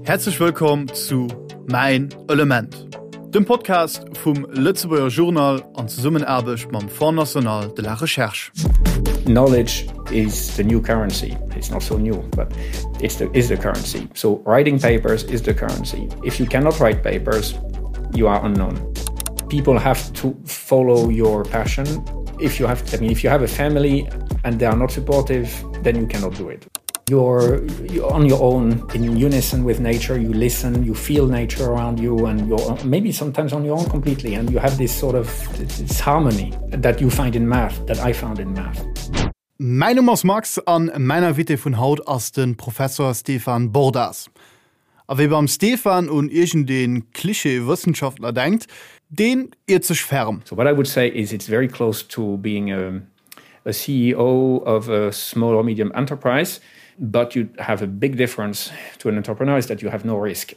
Häerzlech wëllkomm zu Mäin Element, dem Podcast vum Lëtzebuerger Journal an Zesummenaarbecht mam Fonds National de la Recherche. Knowledge is the new currency. It's not so new, but it's the, is the currency. So writing papers is the currency. If you cannot write papers, you are unknown. People have to follow your passion. If you have, I mean, if you have a family and they are not supportive, then you cannot do it. You're, you're on your own in unison with nature you listen you feel nature around you and you're maybe sometimes on your own completely and you have this sort of this harmony that you find in math that I found in math. Mäin Numm ass Max an mäin Invité vun haut ass de Professor Stefan Bordas. A wie beim Stefan un iergendee Klischee-Wëssenschaftler denkt, deen iert sech ferm. So what I would say is it's very close to being a, a CEO of a small or medium enterprise, but you have a big difference to an entrepreneur is that you have no risk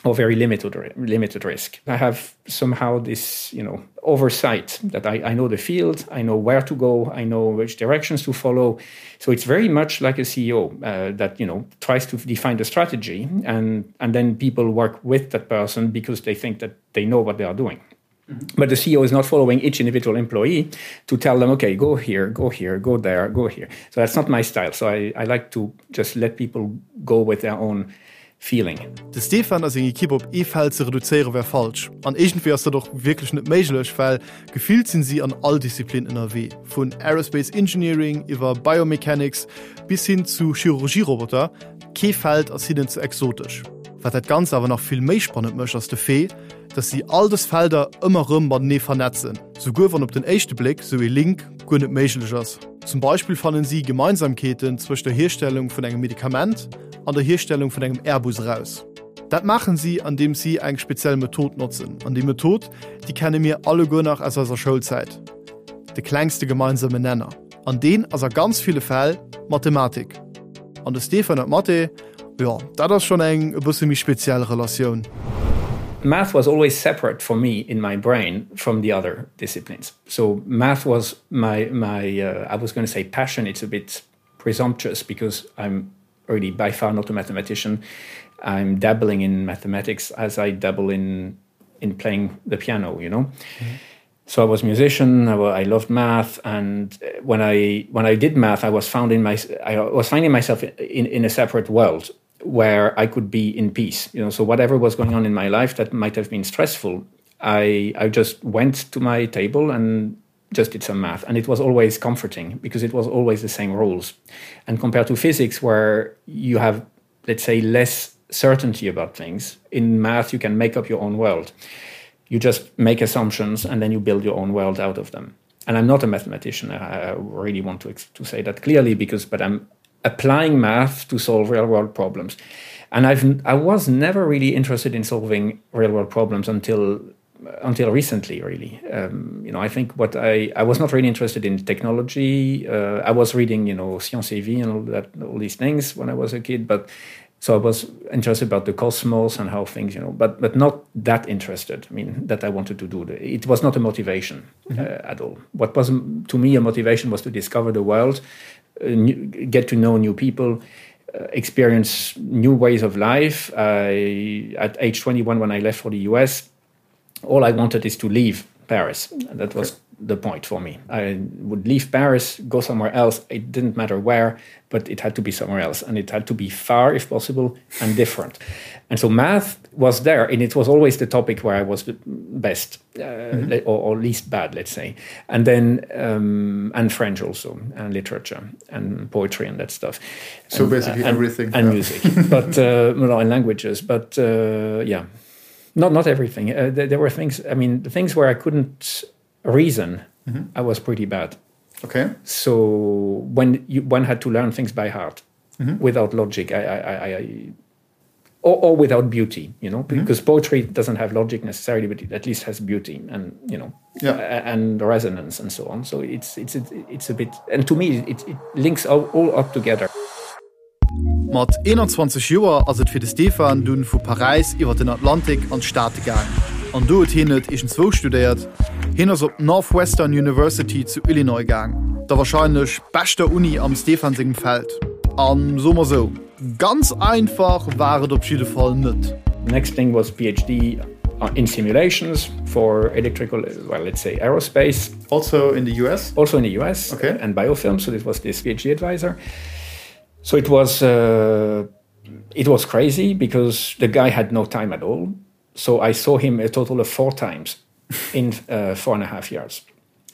or very limited limited risk. I have somehow this you know oversight that I, I know the field, I know where to go, I know which directions to follow. So it's very much like a CEO uh, that you know tries to define the strategy and and then people work with that person because they think that they know what they are doing. Mm -hmm. But the CEO is not following each individual employee to tell them, okay, go here, go here, go there, go here. So that's not my style. So I, I like to just let people go with their own feeling. De Stefan a seng Ekipp op ee Feld ze reduzéiere wär falsch. An iergendwéi ass dat och wierklech net méiglech, well gefillt sinn si an all Disziplin ënnerwee, vun Aerospace Engineering iwwer Biomechanics bis hin zu Chirurgie-Roboter, kee Feld ass hinnen ze exotesch. Wat dat Ganzt awer nach vill méi spannend mécht ass de Fait, dass si all dës Felder ëmmer rëm matenee vernetzen, souguer wann op den éischte Bléck sou ee Link guer net méiglech ass. Zum Beispill fannen si Gemeinsamkeeten zwëscht der Hierstellung vun engem Medikament an der Hierstellung vun engem Airbus eraus. Dat maachen si andeems si eng speziell Method notzen. An déi Method, déi kenne mir alleguer nach aus eiser Schoulzäit, de klengste gemeinsame Nenner. An deen ass a ganz ville Fäll Mathematik. An de Stefan huet Mathé, jo, dat ass schonn eng e bësse méi speziell Relatioun. Math was always separate for me in my brain from the other disciplines. So math was my my uh, I was going to say passion, it's a bit presumptuous because I'm already by far not a mathematician. I'm dabbling in mathematics as I dabble in in playing the piano, you know. Mm -hmm. So I was a musician, I, I loved math and uh, when I when I did math, I was found in my I was finding myself in, in a separate world where I could be in peace. You know, so whatever was going on in my life that might have been stressful, I, I just went to my table and just did some math and it was always comforting because it was always the same rules and compared to physics where you have let's say less certainty about things in math you can make up your own world you just make assumptions and then you build your own world out of them and I'm not a mathematician I, I really want to to say that clearly because but I'm applying math to solve real world problems and I've I was never really interested in solving real world problems until until recently really um, you know I think what I I was not really interested in technology uh, I was reading you know science vie and all that all these things when I was a kid but so I was interested about the cosmos and how things you know but but not that interested I mean that I wanted to do the, it was not a motivation mm -hmm. uh, at all what was to me a motivation was to discover the world uh, new, get to know new people uh, experience new ways of life I at age 21 when I left for the US all I wanted is to leave Paris and that was okay the point for me. I would leave Paris, go somewhere else. It didn't matter where, but it had to be somewhere else and it had to be far if possible and different. And so math was there and it was always the topic where I was the best uh, mm -hmm. or, or least bad, let's say. And then um, and French also and literature and poetry and that stuff. So and, basically uh, and, everything and yeah. music, but uh, well, and languages, but uh, yeah not not everything. Uh, there, there were things I mean the things where I couldn't reason mm -hmm. I was pretty bad. Okay. So when you, one had to learn things by heart mm -hmm. without logic, I, I, I, I or, or without beauty, you know, mm -hmm. because poetry doesn't have logic necessarily, but it at least has beauty and you know yeah. and resonance and so on. So it's it's it's a bit and to me it, it links all, all up together. Mat 21 Joer ass et fir de Stefan dunn vu Paräis iwwer den Atlantik an d'Staate gaang. An do huet hien net iergendzwou studéiert, hien ass op d'Northwestern University zu Illinois gaang, der warscheinlech beschter Uni am Stefan sengem Feld. A soe mer sou. Ganz einfach war et op jidde Fall net. Next thing was PhD in simulations for electrical well let's say aerospace. Also in the US? Also in the US okay. and biofilm, so this was this PhD advisor. So it was uh, it was crazy because the guy had no time at all. So I saw him a total of four times in uh, 4.5 years.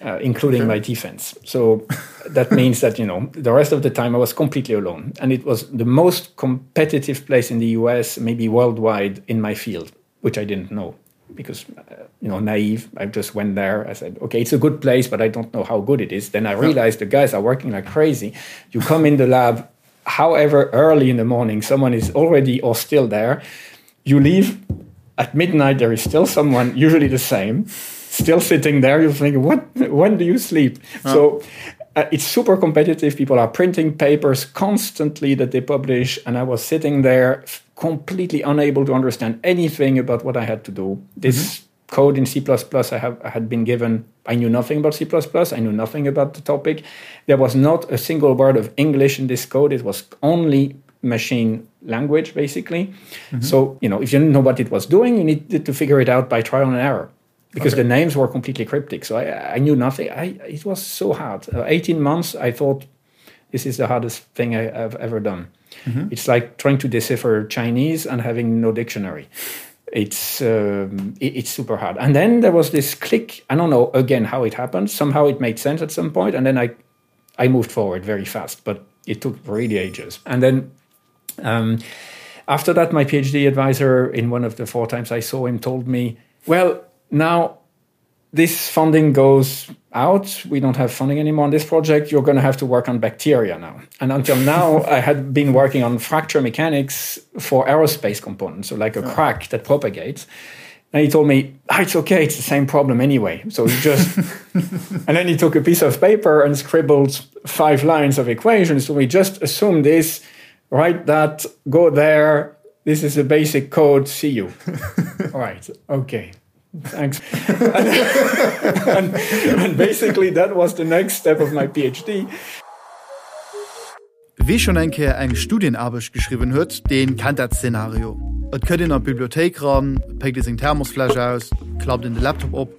Uh, including okay. my defense. So that means that you know the rest of the time I was completely alone and it was the most competitive place in the US, maybe worldwide in my field, which I didn't know because uh, you know naive I just went there I said okay it's a good place but I don't know how good it is then I realized the guys are working like crazy you come in the lab however early in the morning someone is already or still there you leave at midnight there is still someone usually the same still sitting there you think what when do you sleep oh. so uh, it's super competitive people are printing papers constantly that they publish and I was sitting there completely unable to understand anything about what I had to do this mm -hmm. code in C++ I have I had been given I knew nothing about C++ I knew nothing about the topic there was not a single word of English in this code it was only machine language basically mm -hmm. so you know if you didn't know what it was doing you needed to figure it out by trial and error because okay. the names were completely cryptic so I, I knew nothing I it was so hard uh, 18 months I thought this is the hardest thing I, I've ever done mm -hmm. it's like trying to decipher Chinese and having no dictionary it's um, it, it's super hard and then there was this click I don't know again how it happened somehow it made sense at some point and then I I moved forward very fast but it took really ages and then um, after that my PhD advisor in one of the four times I saw him told me well now this funding goes out we don't have funding anymore on this project you're going to have to work on bacteria now and until now I had been working on fracture mechanics for aerospace components so like a yeah. crack that propagates and he told me ah, it's okay it's the same problem anyway so he just and then he took a piece of paper and scribbled five lines of equations so we just assume this write that go there this is a basic code see you all right okay thanks and, and, and basically that was the next step of my PhD. Wie schonn eng Kéier eng Studienaarbecht geschriwwen huet, dee kennt dat Szenario. Et kënnt een an d'Bibliothéik ran, et péckt ee seng Thermosfläsch aus, et klappt een de Laptop op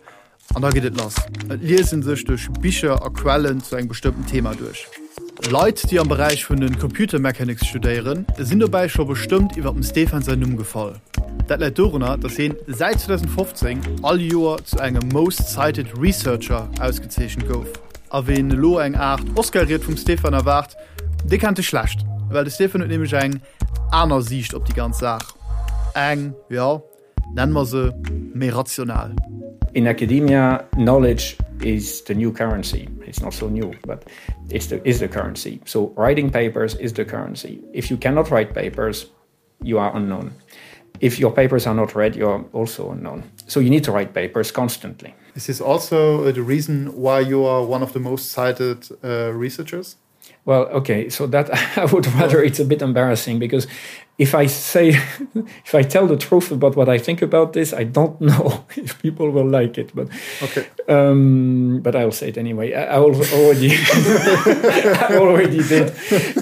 an da geet et lass. Et liest ee sech duerch Bicher a Quellen zu engem bestëmmten Thema duerch. Leit, déi am Beräich vun de Computer Mechanics studéieren, sinn dobäi scho bestëmmt iwwer dem Stefan säin Numm gefall. Dat läit dorunner, datt hien säit 2015 all Joer zu engem Most Cited Researcher ausgezeechent gouf. A ween elo eng Aart Oscar-Ried vum Stefan erwaart, dee kennt e schlecht, well de Stefan huet nämlech eng aner Siicht op déi ganz Saach. Eng, jo, nennen mer se méi rational. In academia, knowledge is the new currency. It's not so new, but it's the, is the currency. So writing papers is the currency. If you cannot write papers, you are unknown. If your papers are not read, you're also unknown. So you need to write papers constantly. Is this also uh, the reason why you are one of the most cited uh, researchers? Well, okay, so that I would rather it's a bit embarrassing because if I say if I tell the truth about what I think about this, I don't know if people will like it, but okay. um, but I'll say it anyway. I, I already I already did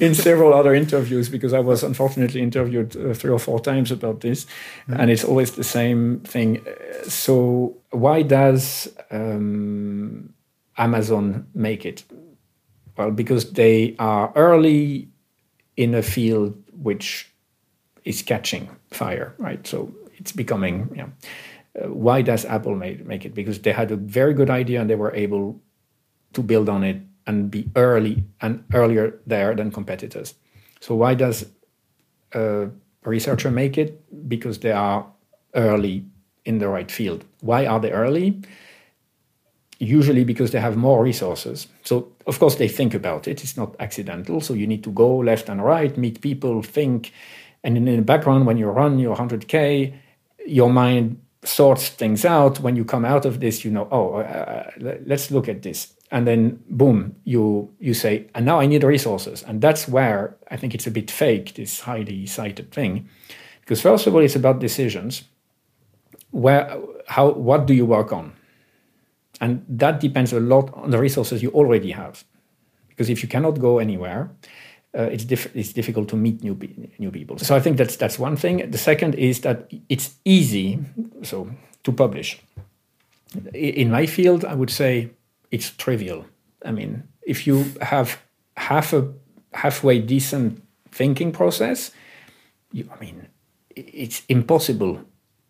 in several other interviews because I was unfortunately interviewed uh, three or four times about this mm. and it's always the same thing. So why does um, Amazon make it? Well, because they are early in a field which is catching fire, right? So it's becoming you know, uh, why does Apple make, make it? Because they had a very good idea and they were able to build on it and be early and earlier there than competitors. So why does a researcher make it? Because they are early in the right field. Why are they early? Usually because they have more resources. So of course they think about it. It's not accidental. So you need to go left and right, meet people, think. And in the background, when you run your 100K, your mind sorts things out. When you come out of this, you know, oh, uh, uh let's look at this. And then boom, you, you say, and now I need resources. And that's where I think it's a bit fake, this highly cited thing. Because first of all, it's about decisions. Where, how, what do you work on? And that depends a lot on the resources you already have. Because if you cannot go anywhere, Uh, it's, diff it's difficult to meet new, new people. So I think that's, that's one thing. The second is that it's easy so, to publish. In my field, I would say it's trivial. I mean, if you have half a halfway decent thinking process, you, I mean, it's impossible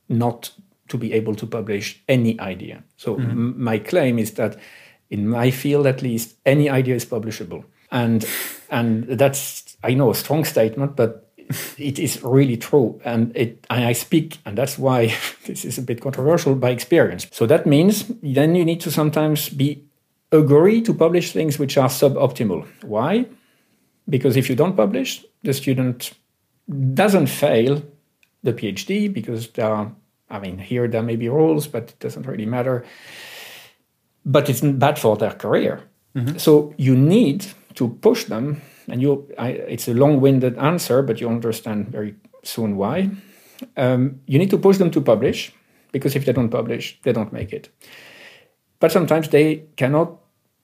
not to be able to publish any idea. So mm -hmm. my claim is that in my field at least, any idea is publishable. And and that's I know a strong statement, but it is really true and it and I speak and that's why this is a bit controversial by experience. So that means then you need to sometimes be agree to publish things which are suboptimal. Why? Because if you don't publish, the student doesn't fail the PhD because there are, I mean here there may be rules, but it doesn't really matter. But it's bad for their career. Mm -hmm. So you need to push them and you I, it's a long-winded answer, but you understand very soon why. Um, you need to push them to publish because if they don't publish, they don't make it. But sometimes they cannot,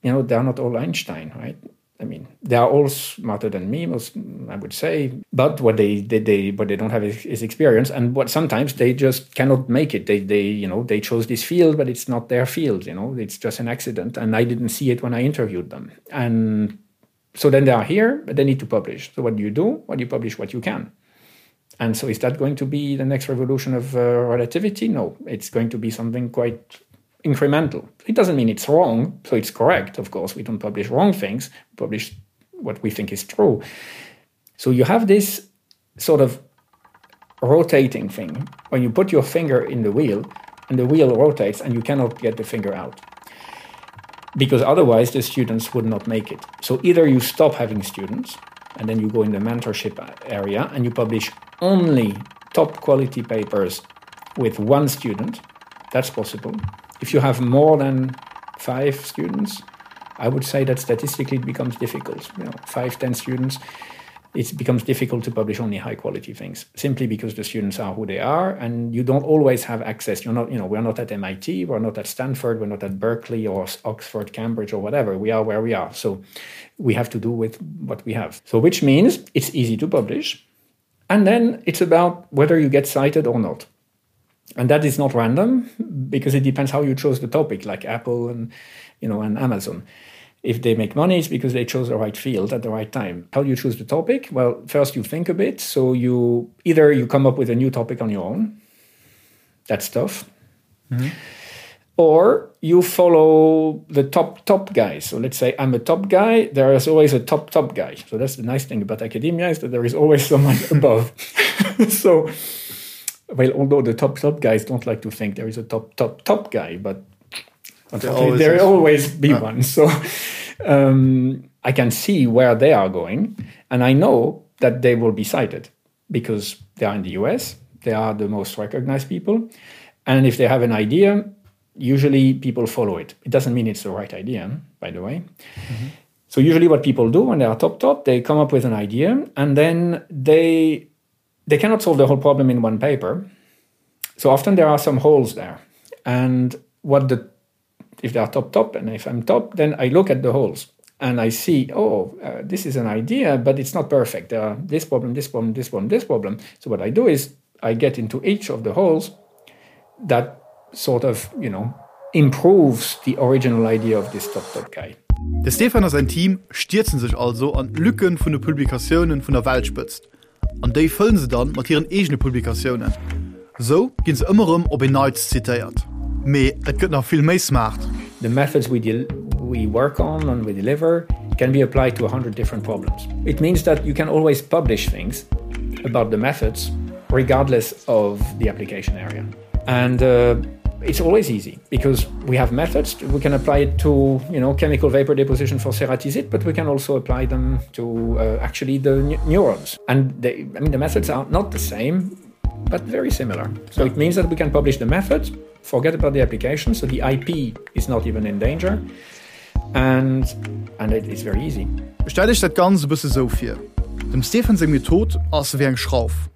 you know, they're not all Einstein, right? I mean, they are all smarter than me, most I would say. But what they they, they what they don't have is, is experience, and what sometimes they just cannot make it. They they you know they chose this field, but it's not their field. You know, it's just an accident, and I didn't see it when I interviewed them. And so then they are here, but they need to publish. So what do you do? Well, you publish what you can. And so is that going to be the next revolution of uh, relativity? No, it's going to be something quite incremental. It doesn't mean it's wrong, so it's correct, of course. We don't publish wrong things, we publish what we think is true. So you have this sort of rotating thing when you put your finger in the wheel and the wheel rotates and you cannot get the finger out because otherwise the students would not make it. So either you stop having students and then you go in the mentorship area and you publish only top quality papers with one student, that's possible. If you have more than five students, I would say that statistically it becomes difficult. You know, five, ten students, it becomes difficult to publish only high quality things simply because the students are who they are and you don't always have access. You're not, you know, we're not at MIT, we're not at Stanford, we're not at Berkeley or Oxford, Cambridge or whatever. We are where we are. So we have to do with what we have. So which means it's easy to publish. And then it's about whether you get cited or not. And that is not random because it depends how you chose the topic, like Apple and you know and Amazon. If they make money, it's because they chose the right field at the right time. How do you choose the topic? Well, first you think a bit. So you either you come up with a new topic on your own. That's tough. Mm -hmm. Or you follow the top top guys. So let's say I'm a top guy, there is always a top top guy. So that's the nice thing about academia is that there is always someone above. so well, although the top top guys don't like to think there is a top top top guy, but unfortunately there always be yeah. one. So um, I can see where they are going, and I know that they will be cited because they are in the US, they are the most recognized people, and if they have an idea, usually people follow it. It doesn't mean it's the right idea, by the way. Mm -hmm. So usually what people do when they are top top, they come up with an idea and then they they cannot solve the whole problem in one paper. So often there are some holes there. And what the if they are top top and if I'm top, then I look at the holes and I see, oh, uh, this is an idea, but it's not perfect. There are this problem, this problem, this problem, this problem. So what I do is I get into each of the holes that sort of, you know, improves the original idea of this top top guy. De Stefan a säin Team stierze sech also an d'Lücken vun de Publikatiounen vun der Weltspëtzt. An déi fëllen se dann mat hiren eegene Publikatiounen. Esou ginn se ëmmer erëm op een Neits zitéiert. Mee et gëtt nach vill méi smart. The methods we deal we work on and we deliver can be applied to 100 different problems. It means that you can always publish things about the methods regardless of the application area. And uh, it's always easy because we have methods we can apply it to you know chemical vapor deposition for ceratizid but we can also apply them to uh, actually the neurons and they, I mean the methods are not the same but very similar so it means that we can publish the methods forget about the application so the IP is not even in danger and and it is very easy Stellt iech dat Ganzt e bësse sou vir, Dem Stephen seng Method ass ewéi eng Schrauf.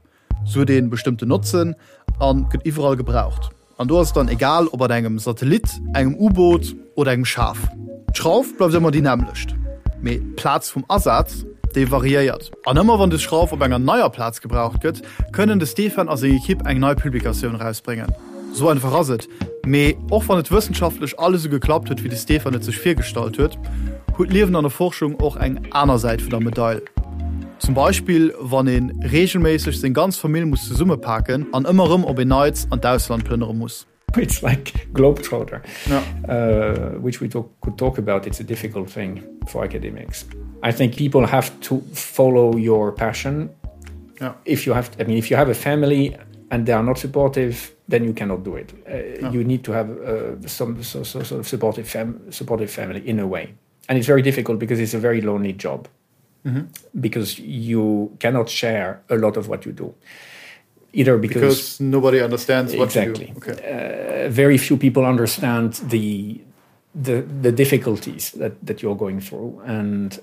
Se huet ee bestëmmten Notzen a gëtt iwwerall gebraucht. An do ass et dann egal, ob an engem Satellit, engem U-Boot oder engem Schaf. D'Schrauf bleift ëmmer déi nämmlecht, mee d'Plaz vum Asaz. déi variéiert. An ëmmer wann des Schrauf op enger neier Plaz gebraucht gëtt, kënnen de Stefan a seng Ekipp eng nei Publikatioun erausbréngen. Sou einfach ass et. Mee och wann et wëssenschaftlech alles esou geklappt huet, wéi de Stefan et sech virgestallt huet, huet d'Liewen an der Forschung och eng aner Säit vun der Medail. Zum Beispill wann ee reegelméisseg seng ganz Famill muss zesummepaken an ëmmer erëm op een Neits an d'Ausland plënnere muss. It's like globetrotter, yeah. uh, which we talk, could talk about. It's a difficult thing for academics. I think people have to follow your passion. Yeah. If you have, I mean, if you have a family and they are not supportive, then you cannot do it. Uh, no. You need to have uh, some so, so, sort of supportive, fam supportive family in a way. And it's very difficult because it's a very lonely job mm -hmm. because you cannot share a lot of what you do. Either because, because nobody understands what exactly. you do. Okay. Uh, very few people understand the, the, the difficulties that, that you're going through. And,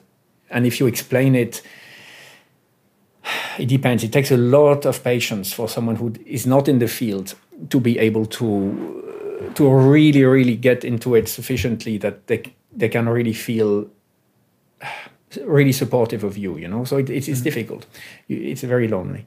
and if you explain it, it depends. It takes a lot of patience for someone who is not in the field to be able to to really really get into it sufficiently that they they can really feel really supportive of you you know so it, it's, it's mm -hmm. difficult it's very lonely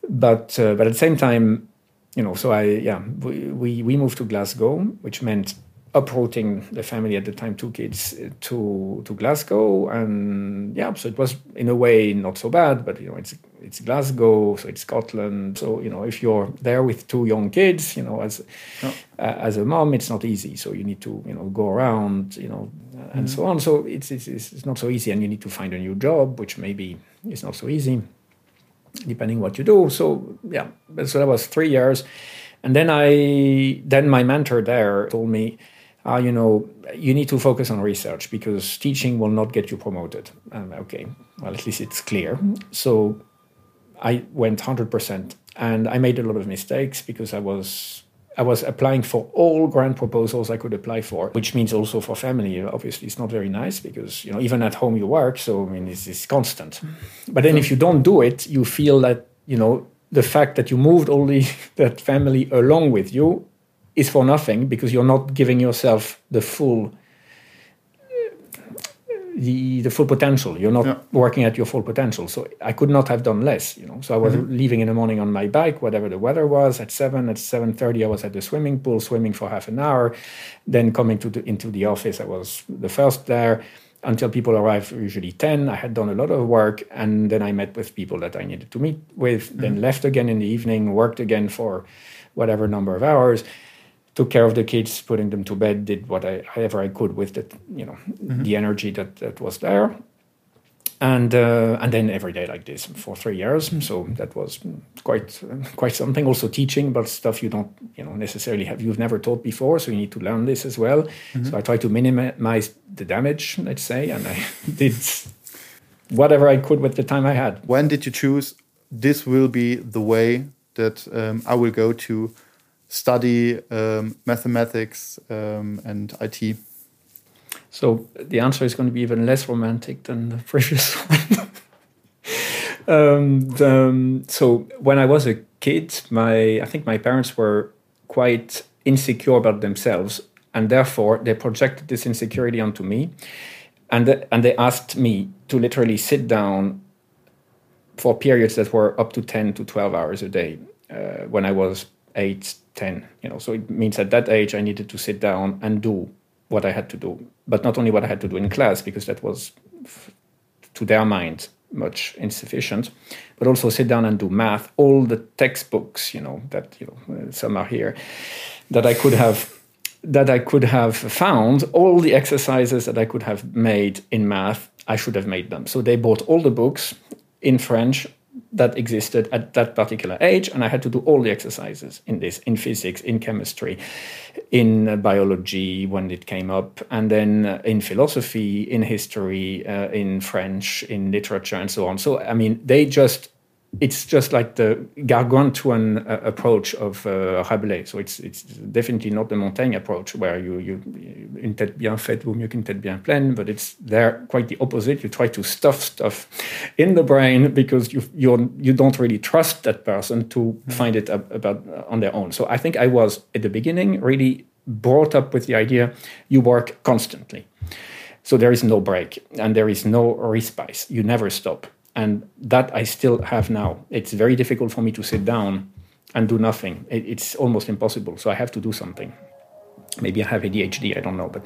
but uh, but at the same time you know so I yeah we, we we moved to Glasgow which meant uprooting the family at the time two kids uh, to to Glasgow and yeah so it was in a way not so bad but you know it's it's Glasgow so it's Scotland so you know if you're there with two young kids you know as yeah. uh, as a mom it's not easy so you need to you know go around you know and mm -hmm. so on so it's, it's it's not so easy and you need to find a new job which maybe is not so easy depending what you do so yeah so that was three years and then I then my mentor there told me ah you know you need to focus on research because teaching will not get you promoted and okay well at least it's clear so I went 100% and I made a lot of mistakes because I was I was applying for all grant proposals I could apply for, which means also for family obviously it's not very nice because you know even at home you work so I mean it's, it's constant but then if you don't do it you feel that you know the fact that you moved all the that family along with you is for nothing because you're not giving yourself the full the the full potential you're not yeah. working at your full potential so I could not have done less you know so I was mm -hmm. leaving in the morning on my bike whatever the weather was at 7 at 7:30 I was at the swimming pool swimming for half an hour then coming to the, into the office I was the first there until people arrived usually 10 I had done a lot of work and then I met with people that I needed to meet with mm -hmm. then left again in the evening worked again for whatever number of hours took care of the kids putting them to bed did what I however I could with the you know mm -hmm. the energy that that was there and uh, and then every day like this for three years so that was quite uh, quite something also teaching but stuff you don't you know necessarily have you've never taught before so you need to learn this as well mm -hmm. so I try to minimize the damage let's say and I did whatever I could with the time I had when did you choose this will be the way that um, I will go to study um, mathematics um, and IT? So the answer is going to be even less romantic than the previous one. um, the, um, so when I was a kid, my I think my parents were quite insecure about themselves and therefore they projected this insecurity onto me and the, and they asked me to literally sit down for periods that were up to 10 to 12 hours a day uh, when I was 8 10 you know so it means at that age I needed to sit down and do what I had to do but not only what I had to do in class because that was to their mind much insufficient but also sit down and do math all the textbooks you know that you know uh, some are here that I could have that I could have found all the exercises that I could have made in math I should have made them so they bought all the books in French that existed at that particular age and I had to do all the exercises in this in physics in chemistry in uh, biology when it came up and then uh, in philosophy in history uh, in French in literature and so on so I mean they just it's just like the gargantuan uh, approach of uh, Rabelais so it's it's definitely not the Montaigne approach where you you une tête bien faite vaut mieux qu'une tête bien pleine but it's there quite the opposite you try to stuff stuff in the brain because you you're you don't really trust that person to mm -hmm. find it up about uh, on their own so I think I was at the beginning really brought up with the idea you work constantly. So there is no break and there is no respite. You never stop. And that I still have now. It's very difficult for me to sit down and do nothing. It, it's almost impossible. So I have to do something. Maybe I have ADHD, I don't know, but,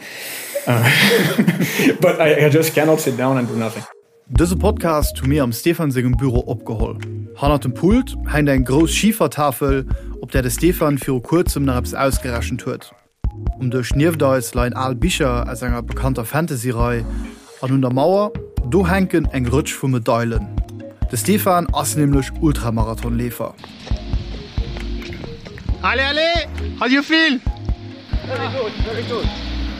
uh, but I, I just cannot sit down and do nothing. Dëse Podcast hu mir am Stefan sengem Büro opgeholl. Hannert dem Pult hänkt eng grouss Schifertafel, op där de Stefan viru kuerzem nach eppes ausgerechent huet. Um Dësch nieft eis leien al Bicher aus enger bekannter Fantasy-Rei an un der Mauer, do hänken eng Rëtsch vu Medailen. De Stefan ass nämlech Ultramarathonleefer. Allez, allez, how do you feel? Very good, very good.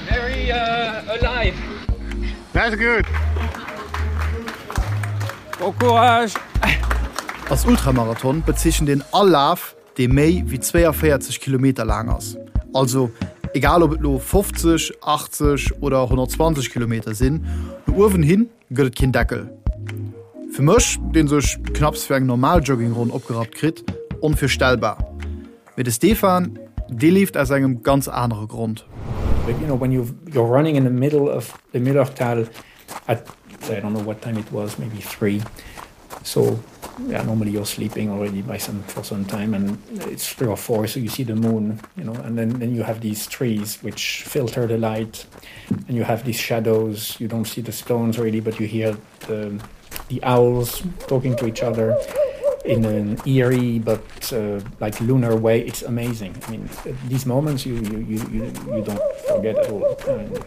Very uh, alive. That's good. Bon courage! Als Ultramarathon bezeechent een all Laf, dee méi wéi 42 Kilometer laang ass. Also egal ob et lo 50, 80 oder 120 Kilometer sinn, no uewen hin gëtt et keen Deckel. Fir mech, dee sech knapps fir eng normal Joggingronn opgerappt kritt, onvirstellbar. Mee de Stefan, dee leeft aus engem ganz anere Grond. You know, when you you're running in the middle of the Millertal at I don't know what time it was, maybe 3. So yeah, normally you're sleeping already by some for some time and it's 3 or 4 so you see the moon, you know, and then then you have these trees which filter the light and you have these shadows. You don't see the stones really, but you hear the the owls talking to each other in an eerie but uh, like lunar way. It's amazing. I mean, these moments you you you you, you don't forget at all. And,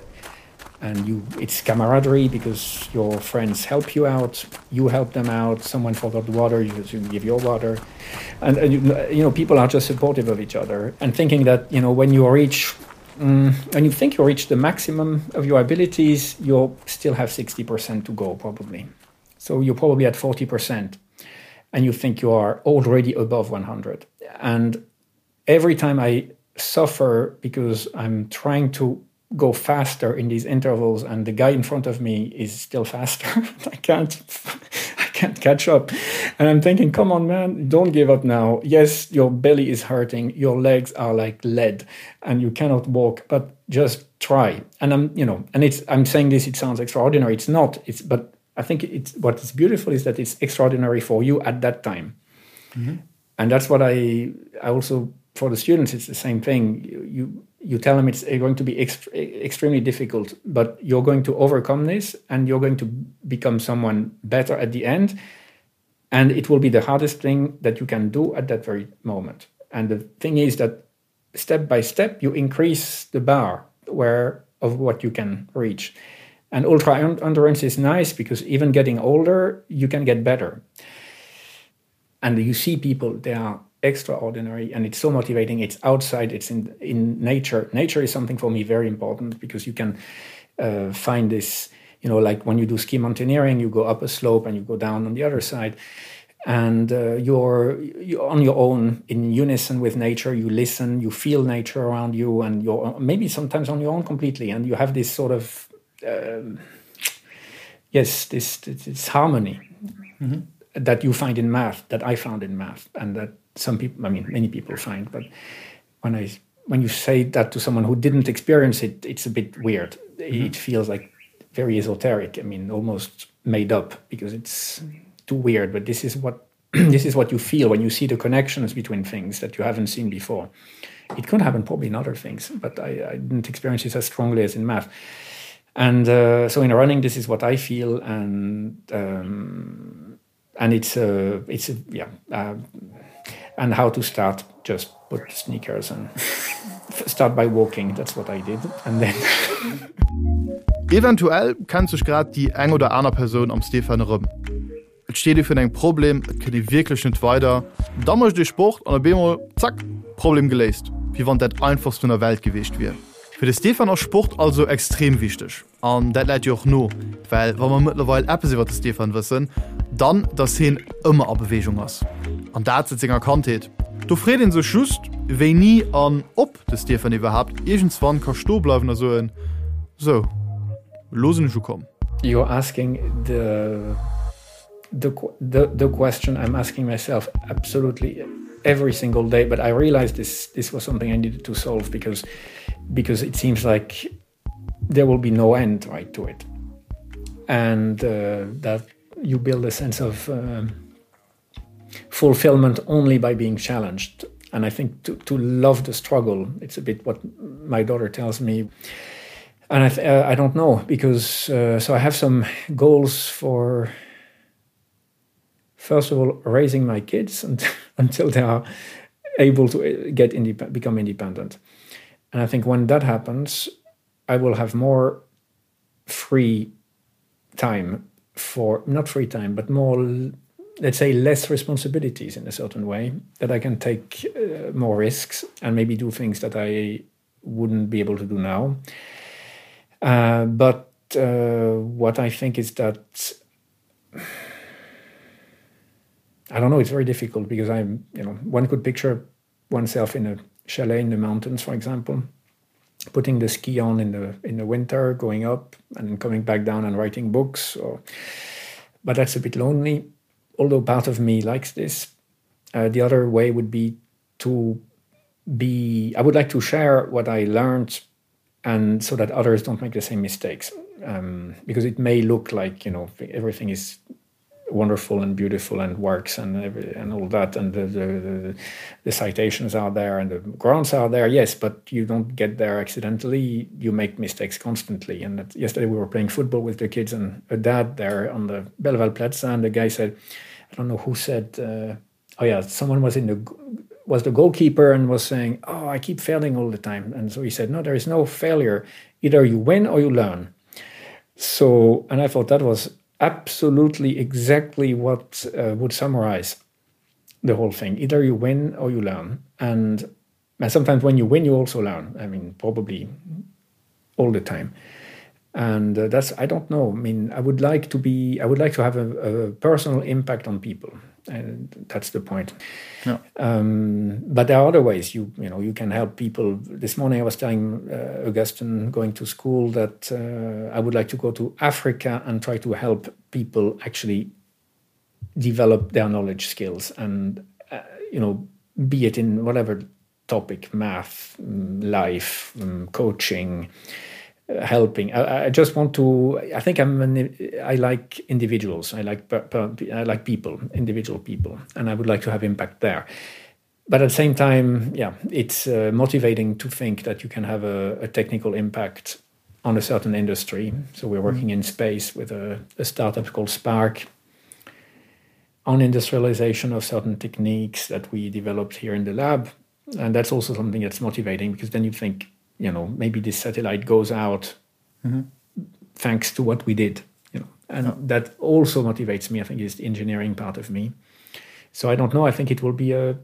and you it's camaraderie because your friends help you out, you help them out, someone forgot water, you, you give your water. And, and you, you know, people are just supportive of each other and thinking that, you know, when you reach mm, when you think you reach the maximum of your abilities, you'll still have 60% to go probably. So you're probably at 40% and you think you are already above 100. And every time I suffer because I'm trying to go faster in these intervals and the guy in front of me is still faster. I can't I can't catch up. And I'm thinking, come on man, don't give up now. Yes, your belly is hurting, your legs are like lead and you cannot walk, but just try. And I'm you know, and it's I'm saying this it sounds extraordinary. It's not. It's but I think it's what is beautiful is that it's extraordinary for you at that time. Mm -hmm. And that's what I I also for the students it's the same thing. You, you you tell them it's going to be ext extremely difficult, but you're going to overcome this and you're going to become someone better at the end. And it will be the hardest thing that you can do at that very moment. And the thing is that step by step you increase the bar where of what you can reach. And ultra endurance is nice because even getting older, you can get better. And you see people, they are extraordinary and it's so motivating. It's outside, it's in, in nature. Nature is something for me very important because you can uh, find this, you know, like when you do ski mountaineering, you go up a slope and you go down on the other side. And uh, you're, you're on your own in unison with nature. You listen, you feel nature around you, and you're maybe sometimes on your own completely. And you have this sort of um, yes, this, this, this harmony mm -hmm. that you find in math, that I found in math, and that some people, I mean, many people find. But when I when you say that to someone who didn't experience it, it's a bit weird. Mm -hmm. It feels like very esoteric. I mean, almost made up because it's too weird. But this is what this is what you feel when you see the connections between things that you haven't seen before. It could happen probably in other things, but I, I didn't experience it as strongly as in math. And uh, so in running, this is what I feel, and um, and it's a, it's a, yeah, uh, and how to start just put sneakers and start by walking. That's what I did, and then. Eventuell kennt sech grad déi eng oder aner Persoun am Stefan erëm. Et steet ee virun engem Problem, et kënnt ee wierklech net weider, da mécht ee Sport an op eemol, zack, Problem geléist, wéi wann dat einfachst vun der Welt gewiescht wier. Fir de Stefan ass Sport also extrem wichteg an dat läit jo och no, well wa mer mëttlerweil eppes iwwer de Stefan wëssen, dann dass hien ëmmer a Beweegung ass an dat säit senger Kandheet. Do freet ee sech just, wéini an ob de Stefan iwwerhaapt iergendswann ka stoe bleiwen a soen, Sou, elo sinn ech ukomm. You're asking the the the the question I'm asking myself absolutely every single day, but I realized this this was something I needed to solve because because it seems like. there will be no end right to it and uh, that you build a sense of uh, fulfillment only by being challenged and I think to, to love the struggle it's a bit what my daughter tells me and I, uh, I don't know because uh, so I have some goals for first of all raising my kids and, until they are able to uh, get indep become independent and I think when that happens I will have more free time for not free time but more let's say less responsibilities in a certain way that I can take uh, more risks and maybe do things that I wouldn't be able to do now uh, but uh, what I think is that I don't know it's very difficult because I'm you know one could picture oneself in a chalet in the mountains for example putting the ski on in the in the winter going up and coming back down and writing books or but that's a bit lonely although part of me likes this uh, the other way would be to be I would like to share what I learned and so that others don't make the same mistakes um, because it may look like you know everything is wonderful and beautiful and works and every, and all that and the, the, the, the citations are there and the grants are there yes but you don't get there accidentally you make mistakes constantly and that, yesterday we were playing football with the kids and a dad there on the Belval Plaza and the guy said I don't know who said uh, oh yeah someone was in the was the goalkeeper and was saying oh I keep failing all the time and so he said no there is no failure either you win or you learn so and I thought that was absolutely exactly what uh, would summarize the whole thing either you win or you learn and and sometimes when you win you also learn I mean probably all the time and uh, that's I don't know I mean I would like to be I would like to have a, a personal impact on people and that's the point yeah. um, but there are other ways you you know you can help people this morning I was telling uh, Augustin going to school that uh, I would like to go to Africa and try to help people actually develop their knowledge skills and uh, you know be it in whatever topic math mm, life mm, coaching uh, helping I, I just want to I think I'm an, I like individuals I like per, per, I like people individual people and I would like to have impact there but at the same time yeah it's uh, motivating to think that you can have a, a technical impact on a certain industry so we're working mm. in space with a, a startup called Spark on industrialization of certain techniques that we developed here in the lab and that's also something that's motivating because then you think you know maybe this satellite goes out mm -hmm. thanks to what we did you know and yeah. that also motivates me I think is the engineering part of me so I don't know I think it will be a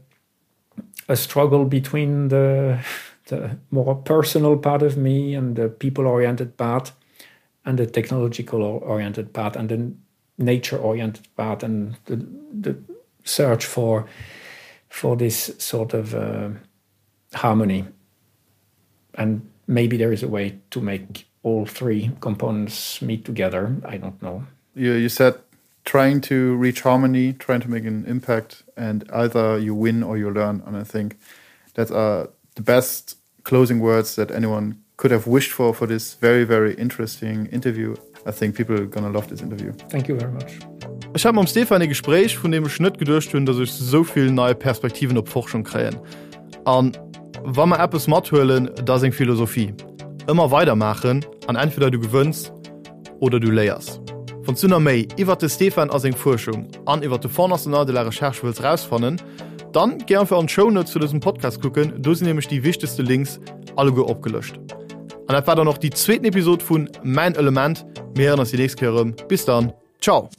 a struggle between the the more personal part of me and the people oriented part and the technological oriented part and the nature oriented part and the, the search for for this sort of uh, harmony and maybe there is a way to make all three components meet together I don't know you, you said trying to reach harmony trying to make an impact and either you win or you learn and I think that are the best closing words that anyone could have wished for for this very very interesting interview I think people are gonna love this interview thank you very much Ech hat mam Stefan e Gespréich, vun deem ech net geduecht hunn, datt ech esou vill nei Perspektiven op Forschung kréien. An wa mer eppes mathuelen, da seng Philosophie, ëmmer weider maachen an entweder du gewënns oder du léiers. Wann s du nach méi iwwert de Stefan a seng Fuerschung an iwwert de Fonds National de la Recherche wëlls rausfannen, dann géi einfach an d'Show Notes zu dësem Podcast kucken, do sinn nämlech déi wichtegste Links alleguer opgelëscht. An dat war dann och déi zweeten Episod vun Mäin Element. Mir héieren eis déi nächst Kéier erëm. Bis dann, ciao!